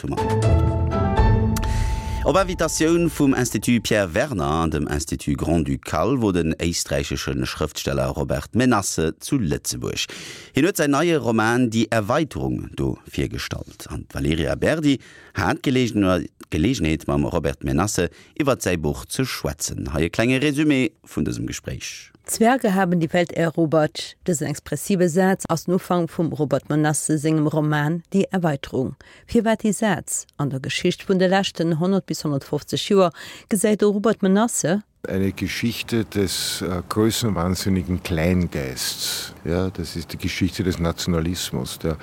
8 hu mer. Op Invitatioun vum Institut Pierre Werner an dem Institut Grand-Ducal wor den éisträichesche Schrëftsteller Robert Menasse zu Lëtzebuerg. Hien huet säin neie Roman Die Erweiterung do virgestallt. An d'Valerija Berdi hat d'Geleegenheet mam Robert Menasse iwwert säi Buch ze schwätzen. Hei e klenge Resumé vun dësem Gespréich. Zwerge haben die Welt erobert, dësen expressive Saz ass den Ufank vum Robert Menasse sengem Roman Die Erweiterung. Firwat dee Saz? An der Geschicht vun de leschten 100 bis 150 Joer gesäit de Robert Menasse, Eine Geschichte des größenwahnsinnigen Kleingeists, ja, das ist die Geschichte des Nationalismus, der,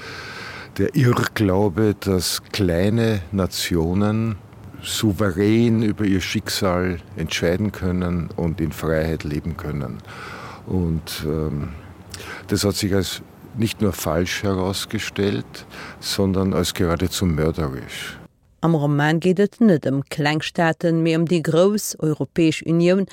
der Irrglaube, dass kleine Nationen souverän über ihr Schicksal entscheiden können und in Freiheit leben können. Und ähm, das hat sich als nicht nur falsch herausgestellt, sondern als geradezu mörderisch. Am Roman geet et net ëm kleng Staaten, mee ëm déi grouss Europäesch Unioun,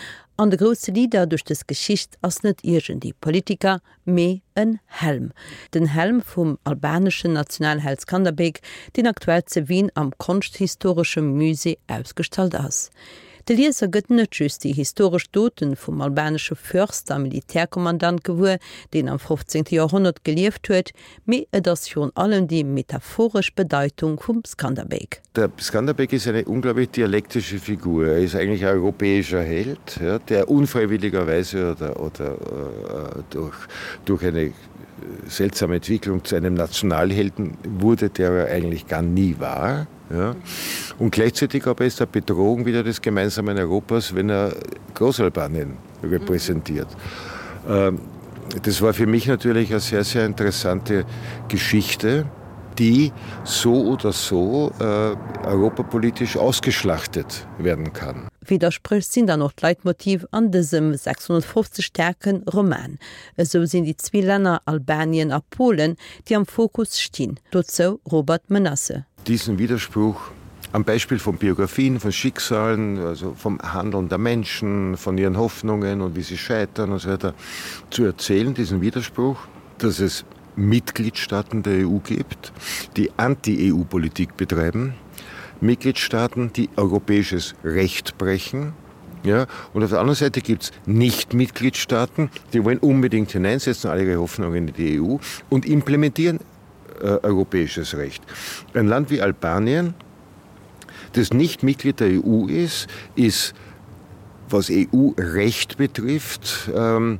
an de grousse Leader duerch dës Geschicht ass net iergendee Politiker, mee en Helm. Den Helm vum albaneschen Nationalheld Skanderbeg, deen aktuell ze Wien am Konschthistoresche Musée ausgestallt ass. De Lieser gëtt net just déi historesch Doten vum albanesche Fürst a Militärkommandant gewuer, deen am 15. Joerhonnert gelieft huet, Mee et ass virun allem déi metaphoresch Bedeitung vum Skanderbeg. Der Skanderbeg ist eine unglaublich dialektische Figur. Er ist eigentlich ein europäischer Held, ja, der unfreiwilligerweise oder, oder äh, durch, durch eine seltsame Entwicklung zu einem Nationalhelden wurde, der er eigentlich gar nie war. Ja. Und gleichzeitig aber ist er Bedrohung wieder des gemeinsamen Europas, wenn er Großalbanien repräsentiert. Mhm. Ähm, das war für mich natürlich eine sehr, sehr interessante Geschichte, die so oder so äh, europapolitisch ausgeschlachtet werden kann. Widderspréch sinn dann och d'Leitmotiv an dësem 650 staarke Roman. Esou sinn déi zwee Länner Albanien a Polen, déi am Fokus stinn. Dozou Robert Menasse. Diesen Widerspruch am Beispiel von Biografien, von Schicksalen, also vom Handeln der Menschen, von ihren Hoffnungen und wie sie scheitern und so weiter zu erzählen, diesen Widerspruch, dass es Mitgliedstaaten der EU gibt, die Anti-EU-Politik betreiben, Mitgliedstaaten, die europäisches Recht brechen. Ja, und auf der anderen Seite gibt es Nicht-Mitgliedstaaten, die wollen unbedingt hineinsetzen, alle ihre Hoffnungen in die EU und implementieren äh, europäisches Recht. Ein Land wie Albanien, das nicht Mitglied der EU ist, ist, was EU-Recht betrifft, ähm,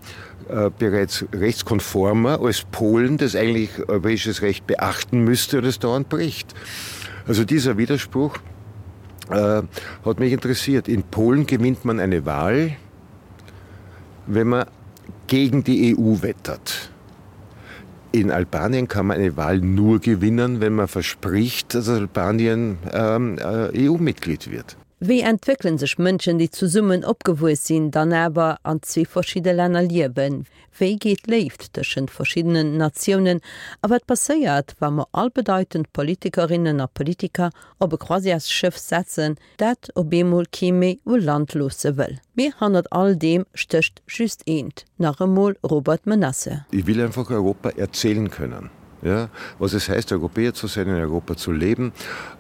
äh, bereits rechtskonformer als Polen, das eigentlich europäisches Recht beachten müsste und es dauernd bricht. Also dieser Widerspruch äh, hat mich interessiert. In Polen gewinnt man eine Wahl, wenn man gegen die EU wettert. In Albanien kann man eine Wahl nur gewinnen, wenn man verspricht, dass Albanien ähm, äh, EU-Mitglied wird. Wéi entwéckele sech Mënschen, déi zesummen opgewuess sinn, dann awer an zwee verschidde Länner liewen? Wéi geet Léift tëschent verschiddenen Natiounen? A wat passéiert, wa mer all bedeitend Politikerinnen a Politiker op e Croisièresschëff setzen, dat op eemol kee méi u Land loosse wëll? Mee hannert all deem stécht just eent, nach emol Robert Menasse. Ich will einfach Europa erzählen können. Ja, was es heißt, Europäer zu sein, in Europa zu leben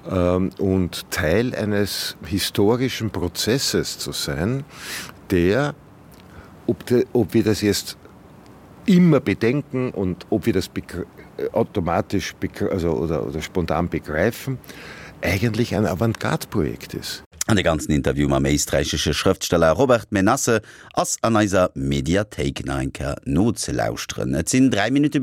ähm, und Teil eines historischen Prozesses zu sein, der, ob, de, ob wir das jetzt immer bedenken und ob wir das automatisch also, oder, oder spontan begreifen, eigentlich ein Avantgarde-Projekt ist. An de ganzen Interview mam éisträichesche Schrëftsteller Robert Menasse ass an eiser Mediathéik nach eng Kéier nozelauschteren. Et sinn 3 Minutte.